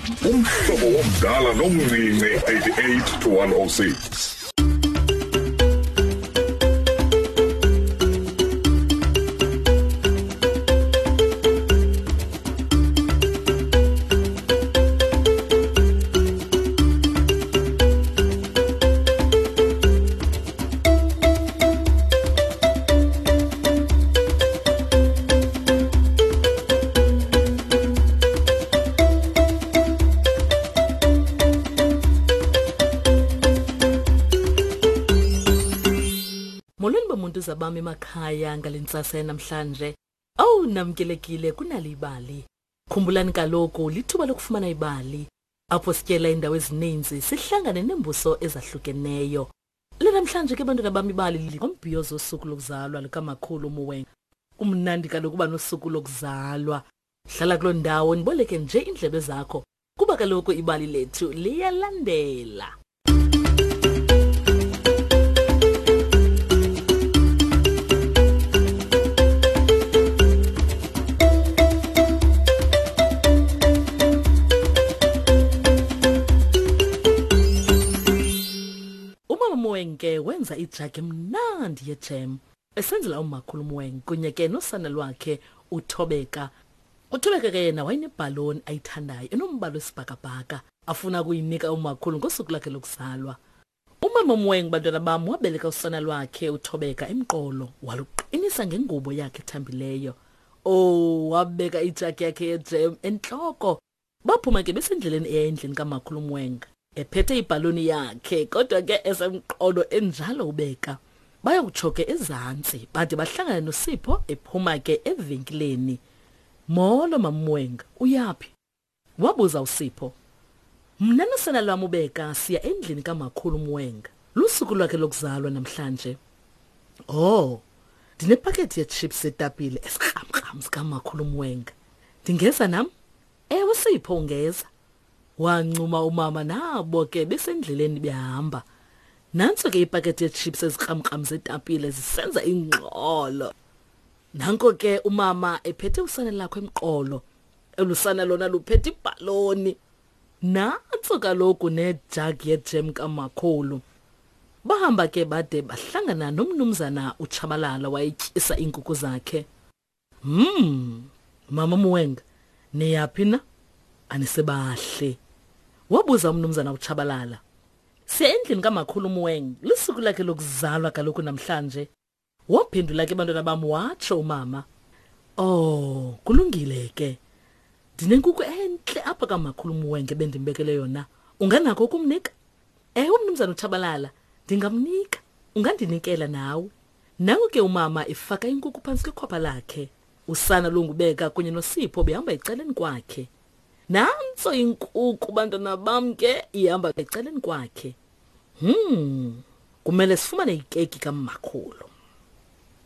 Umhlobo womdala nomncinci 88 to 106. Molweni bomuntu zabami emakhaya ngale ntsasa yanamhlanje. Owu namkelekile kunali ibali. Khumbulani kaloku lithuba lokufumana ibali apho sityela iindawo ezininzi sihlangane neembuso ezahlukeneyo. Lanamhlanje ke bantwana bam ibali ngombhiyozo wosuku lokuzalwa lukamakhulu Muweng. Kumnandi kaloku uba nosuku lokuzalwa. Hlala kuloo ndawo ndiboleke nje iindlebe zakho kuba kaloku ibali lethu liyalandela. Umama Moeng ke wenza ijagi emnandi yejem esenzela umakhulu Moeng kunye ke nosana lwakhe uThobeka. UThobeka ke yena wayenebhaloni ayithandayo enombala wesibhakabhaka afuna ukuyinika umakhulu ngosuku lwakhe lokuzalwa. Umama Moeng bantwana bam wabeleka usana lwakhe uThobeka emqolo waluqinisa ngengubo yakhe ethambileyo. Oh, wabeka ijagi yakhe yejem entloko. Baphuma ke besendleleni eya endlini kamakhulu Mwenga ephethe ibhaloni yakhe kodwa ke esemqolo enjalo ubeka. Bayokutsho ke ezantsi bade bahlangane noSipho ephuma ke evenkileni. Molo mamMwenga, uyaphi? Wabuza uSipho. Mna nosana lwam uBeka siya endlini kamakhulu uMwenga. Lusuku lwakhe lokuzalwa namhlanje. Oh, ndinepakethi yechips etapile esikramkram sikamakhulu uMwenga. Ndingeza nam? Ewe Sipho ungeza. Wancuma umama nabo ke besendleleni behamba. Nantso ke ipakethi yechips ezikramkram zetapile zisenza ingxolo. Nanko ke umama ephethe usana lakho emqolo. Elusana lona luphethe ibhaloni. Nantso kaloku nejagi yejem kamakhulu. Bahamba ke bade bahlangana nomnumzana uTshabalala wayetyisa iinkukhu zakhe. Hmm, mama Muwenga, niyaphi na? Anisebahle. Wabuza umnumzana uTshabalala. Siya endlini kamakhulu Muweng, lusuku lakhe lokuzalwa kaloku namhlanje. Waphendula ke bantwana bam watsho umama. Oh, kulungile ke. Ndinenkukhu entle apha kamakhulu Muwenge bendimbekele yona. Unganako ukumnika? Ewe mnumzana uTshabalala, ndingamnika. Ungandinikela nawe. Nangu ke umama efaka inkukhu phantsi kwekhwapha lakhe. Usana lungubeka kunye noSipho behamba ecaleni kwakhe. Nantso inkukhu bantwana bam ke ihamba ecaleni kwakhe. Hmm, kumele sifumane ikeki kamakhulu.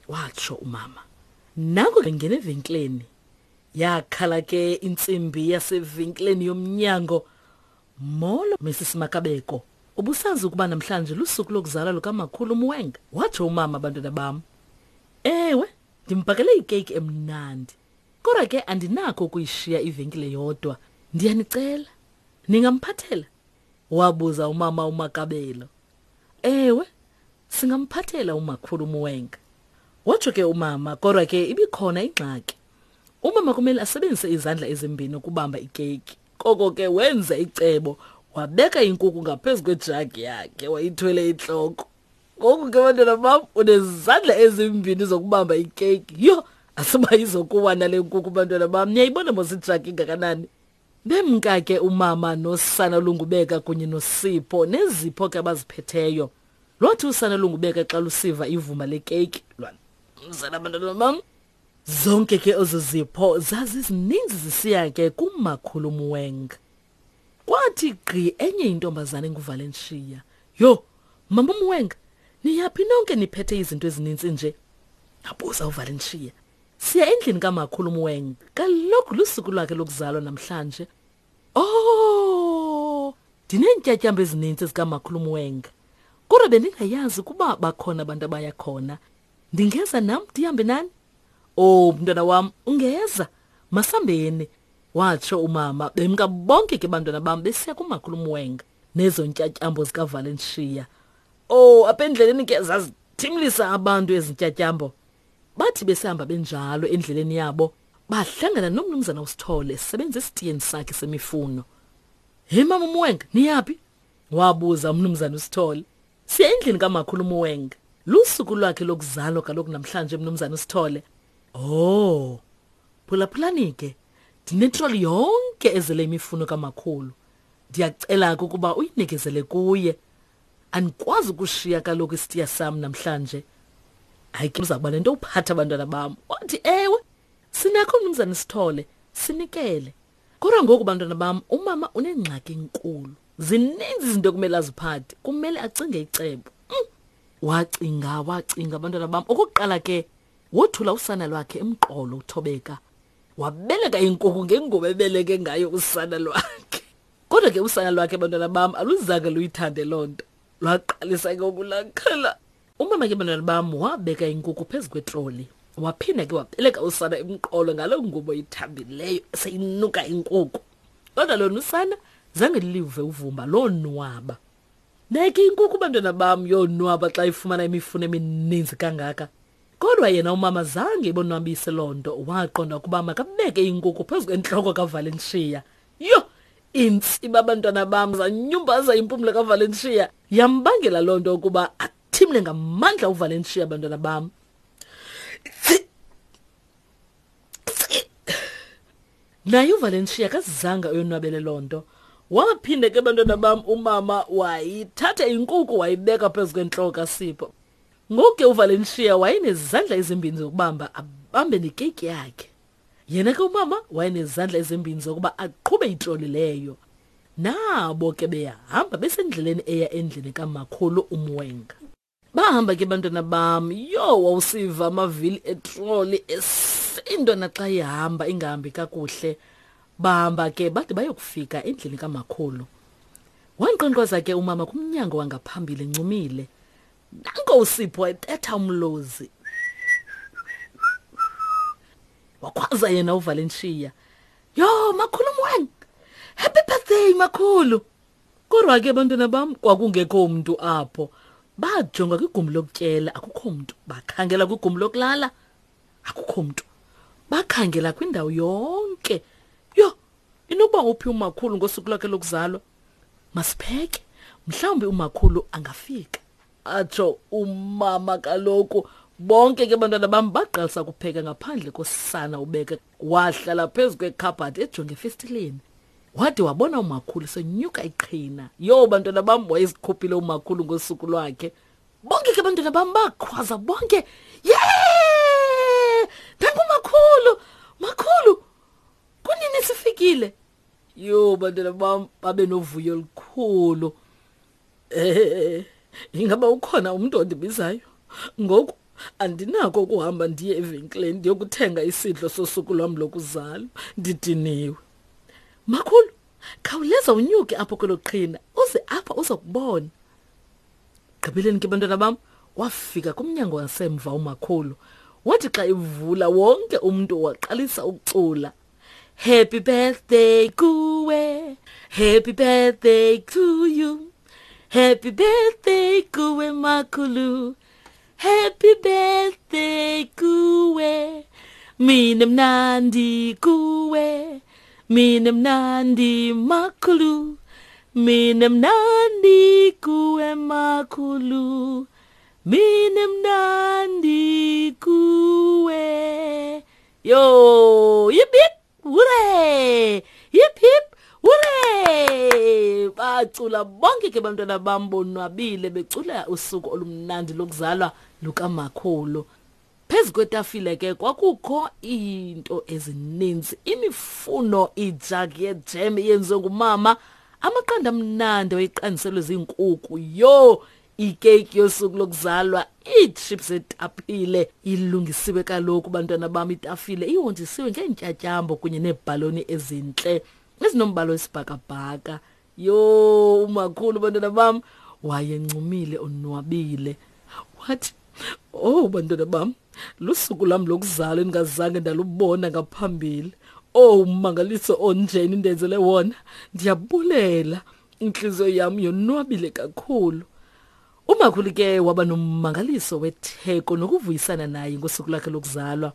Watsho umama. Nangu ngena evenkileni. Yakhala ke intsimbi yasevenkileni yomnyango. Molo Mrs Makabeko. Ubusazi ukuba namhlanje lusuku lokuzalwa lukamakhulu Muwenga? Watsho umama bantwana bam. Ewe, ndimbhakele ikeyiki emnandi. Kodwa ke andinakho ukuyishiya ivenkile yodwa. Ndiyanicela, ningamphathela? Wabuza umama uMakabelo. Ewe, singamphathela umakhulu Muwenga. Watsho ke umama, kodwa ke ibikhona ingxaki. Umama kumele asebenzise izandla ezimbini ukubamba ikeyiki. Koko ke wenza icebo, wabeka inkukhu ngaphezu kwejagi yakhe, wayithwele intloko. Ngoku ke bantwana bam unezandla ezimbini zokubamba ikeyiki. Yho, asiba izokuwa nale nkukhu bantwana bam. Niyayibona mos ijagi ingakanani? Bemka ke umama nosana lungubeka kunye noSipho nezipho ke abaziphetheyo. Lwathi usana lungubeka xa lusiva ivumba lekeyiki lwamzela abantwana bam. Zonke ke ezo zipho zazizininzi zisiya ke kumakhulu Muweng. Kwathi gqi enye intombazana enguValenshiya. Yho, mama Muweng, niyaphi nonke niphethe izinto ezininzi nje? Abuza uValenshiya. Siya endlini kamakhulu Muweng. Kaloku lusuku lwakhe lokuzalwa namhlanje. Oh, ndineentyatyambo ezininzi zikamakhulu Muweng. Kodwa bendingayazi ukuba bakhona abantu abaya khona. Ndingeza nam ndihambe nani? Oh, mntwana wam, ungeza. Masambeni. Watsho umama, bemka bonke ke bantwana bam besiya kumakhulu Mwenga nezo ntyatyambo zikaValenshiya. Oh, apha endleleni ke zazithimlisa abantu ezi ntyatyambo. Bathi besihamba benjalo endleleni yabo, bahlangana nomnumzana uSithole esebenza esitiyeni sakhe semifuno. Hey mama uMwenga, niyaphi? Wabuza umnumzana uSithole. Siya endlini kamakhulu uMwenga. Lusuku lwakhe lokuzalwa kaloku namhlanje mnumzana uSithole. Oh. Phulaphulani ke. Ndinetroli yonke ezele imifuno kamakhulu. Ndiyacela ke ukuba uyinikezele kuye. Andikwazi ukushiya kaloku isitiya sam namhlanje. Hayi ke uza kuba nento uphatha abantwana bam. Wathi ewe, sinakho mnumzana Sithole, sinikele. Kodwa ngoku bantwana bam, umama unengxaki enkulu. Zininzi izinto ekumele aziphathe, kumele acinge icebo. Mm. Wacinga, wacinga abantwana bam. Okokuqala ke wothula usana lwakhe emqolo uThobeka. Wabeleka inkukhu ngengubo ebeleke ngayo usana lwakhe. Kodwa ke usana lwakhe bantwana bam aluzange luyithande loo nto. Lwaqalisa ke ukulakhala. Umama ke bantwana bam wabeka inkukhu phezu kwetroli. Waphinda ke wabeleka usana emqolo ngaloo ngubo ithambileyo seyinuka inkukhu. Kodwa lona usana zange live uvumba lonwaba. Neke inkukhu bantwana bam yonwaba xa ifumana imifuno emininzi kangaka. Kodwa yena umama zange ibonwabise loo nto, waqonda ukuba makabeke inkukhu phezu kwentloko kaValencia. Yho! Iintsiba abantwana bam zanyumbaza impumlo kaValencia. Yambangela loo nto ukuba athimle ngamandla uValencia abantwana bam. Naye uValencia akazange ayonwabele loo nto. Waphinde ke bantwana bam umama wayithatha inkuku wayibeka phezu kwentloko kaSipho. Ngoku ke uValencia wayenezandla ezimbini zokubamba abambe nekeyiki yakhe. Yena ke umama wayenezandla ezimbini zokuba aqhube itroli leyo. Nabo ke beyahamba besendleleni eya endlini kamakhulu uMwenga. Bahamba ke bantwana bam, yho wawusiva amavili etroli esindwa naxa ihamba ingahambi kakuhle. Bahamba ke bade bayokufika endlini kamakhulu. Wankqonkqoza ke umama kumnyango wangaphambili encumile. Nanko uSipho ebetha umlozi. Wakhwaza yena uValencia. Yho, makhulu Mweng. Happy birthday makhulu. Kodwa ke bantwana bam kwakungekho mntu apho. Bajonga kwigumbi lokutyela akukho mntu. Bakhangela kwigumbi lokulala akukho mntu. Bakhangela kwindawo yonke. Yho, inokuba uphi umakhulu ngosuku lwakhe lokuzalwa? Masipheke, mhlawumbi umakhulu angafika. Atsho umama kaloku. Bonke ke bantwana bam baqalisa ukupheka ngaphandle kosana ubeke. Wahlala phezu kwekhabhathi ejonge efestileni. Wade wabona umakhulu senyuka iqhina. Yho bantwana bam wayezikhuphile umakhulu ngosuku lwakhe. Bonke ke bantwana bam bakhwaza bonke. Yee! Nangu makhulu! Makhulu! Kunini sifikile? Yho bantwana bam babe novuyo olukhulu. Eh, ingaba ukhona umuntu ondibizayo? Ngoku andinako ukuhamba ndiye evenkileni ndiyokuthenga isidlo sosuku lwam lokuzalwa. Ndidiniwe. Makhulu, khawuleza unyuke apho kwelo qhina uze apha uzokubona. Gqibeleni ke bantwana bam, wafika kumnyango wasemva umakhulu. Wathi xa ivula wonke umntu waqalisa ukucula. Happy birthday kuwe, happy birthday to you. Happy birthday kuwe makhulu. Happy birthday kuwe. Mina mnandi kuwe. Mina mnandi makhulu. Mina mnandi kuwe makhulu. Mina mnandi kuwe. Yo, yip yip, hooray! Yip hip, hooray! Bacula bonke ke bantwana bam bonwabile becula usuku olumnandi lokuzalwa lukamakhulu. Phezu kwetafile ke kwakukho iinto ezininzi, imifuno, ijagi yejem eyenziwe ngumama, amaqanda amnandi awayeqandiselwe ziinkukhu. Yho, ikeyiki yosuku lokuzalwa, iitships etapile ilungisiwe kaloku bantwana bam, itafile ihonjisiwe ngeentyatyambo kunye neebhaloni ezintle ezinombala wesibhakabhaka. Yho, umakhulu bantwana bam wayencumile onwabile. Wathi, "Oh bantwana bam, lusuku lwam lokuzalwa endingazange ndalubona ngaphambili. Owu, mmangaliso onjeni ndenzele wona. Ndiyabulela. Intliziyo yam yonwabile kakhulu. Umakhulu ke waba nommangaliso wetheko nokuvuyisana naye ngosuku lwakhe lokuzalwa.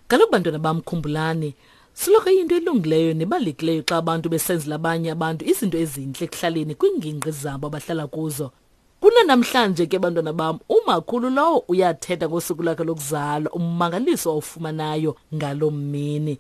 Kaloku bantwana bam khumbulani, soloko iyinto elungileyo nebalulekileyo xa abantu besenzela abanye abantu izinto ezintle ekuhlaleni kwiingingqi zabo abahlala kuzo. Kunanamhlanje ke bantwana bam, umakhulu lowo uyathetha ngosuku lwakhe lokuzalwa, ummangaliso awufumanayo ngaloo mini.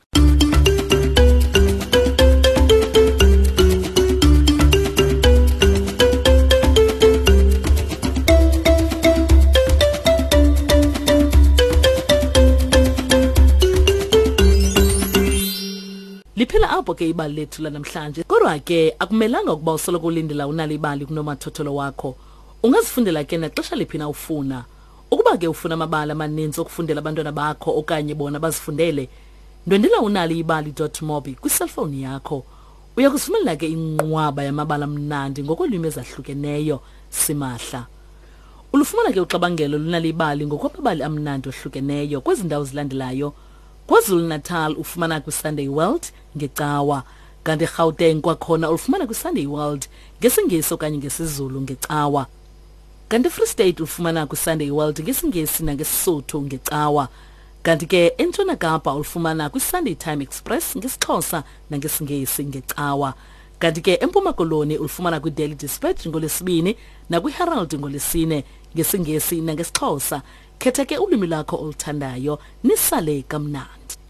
Liphela apho ke ibali lethu lanamhlanje. Kodwa ke akumelanga ukuba usoloko ulindela unalo ibali kunomathotholo wakho. Ungazifundela ke naxesha liphi na ufuna. Ukuba ke ufuna amabali amaninzi okufundela abantwana bakho okanye bona bazifundele, ndwendela unaliibali.mobi kwiselfowuni yakho. Uya kuzifumanela ke inqwaba yamabali amnandi ngokolwimi ezahlukeneyo simahla. Ulufumana ke uxabangelo lunalibali ngokwamabali amnandi ohlukeneyo kwezi ndawo zilandelayo. KwaZulu-Natal ufumana kwiSunday World ngeCawa, kanti eGauteng kwakhona ulufumana kwiSunday World ngesiNgesi okanye ngesiZulu ngeCawa. Kanti eFree State ulufumana kwiSunday World ngesiNgesi nangeSisotho ngeCawa. Kanti ke eNtshona Kapa ulufumana kwiSunday Time Express ngesiXhosa nangesiNgesi ngeCawa. Kanti ke eMpuma Koloni ulufumana kwiDaily Dispatch ngoLwesibini nakwiHerald ngoLwesine ngesiNgesi nangesiXhosa. Khetha ke ulwimi lwakho oluthandayo nisale kamnandi.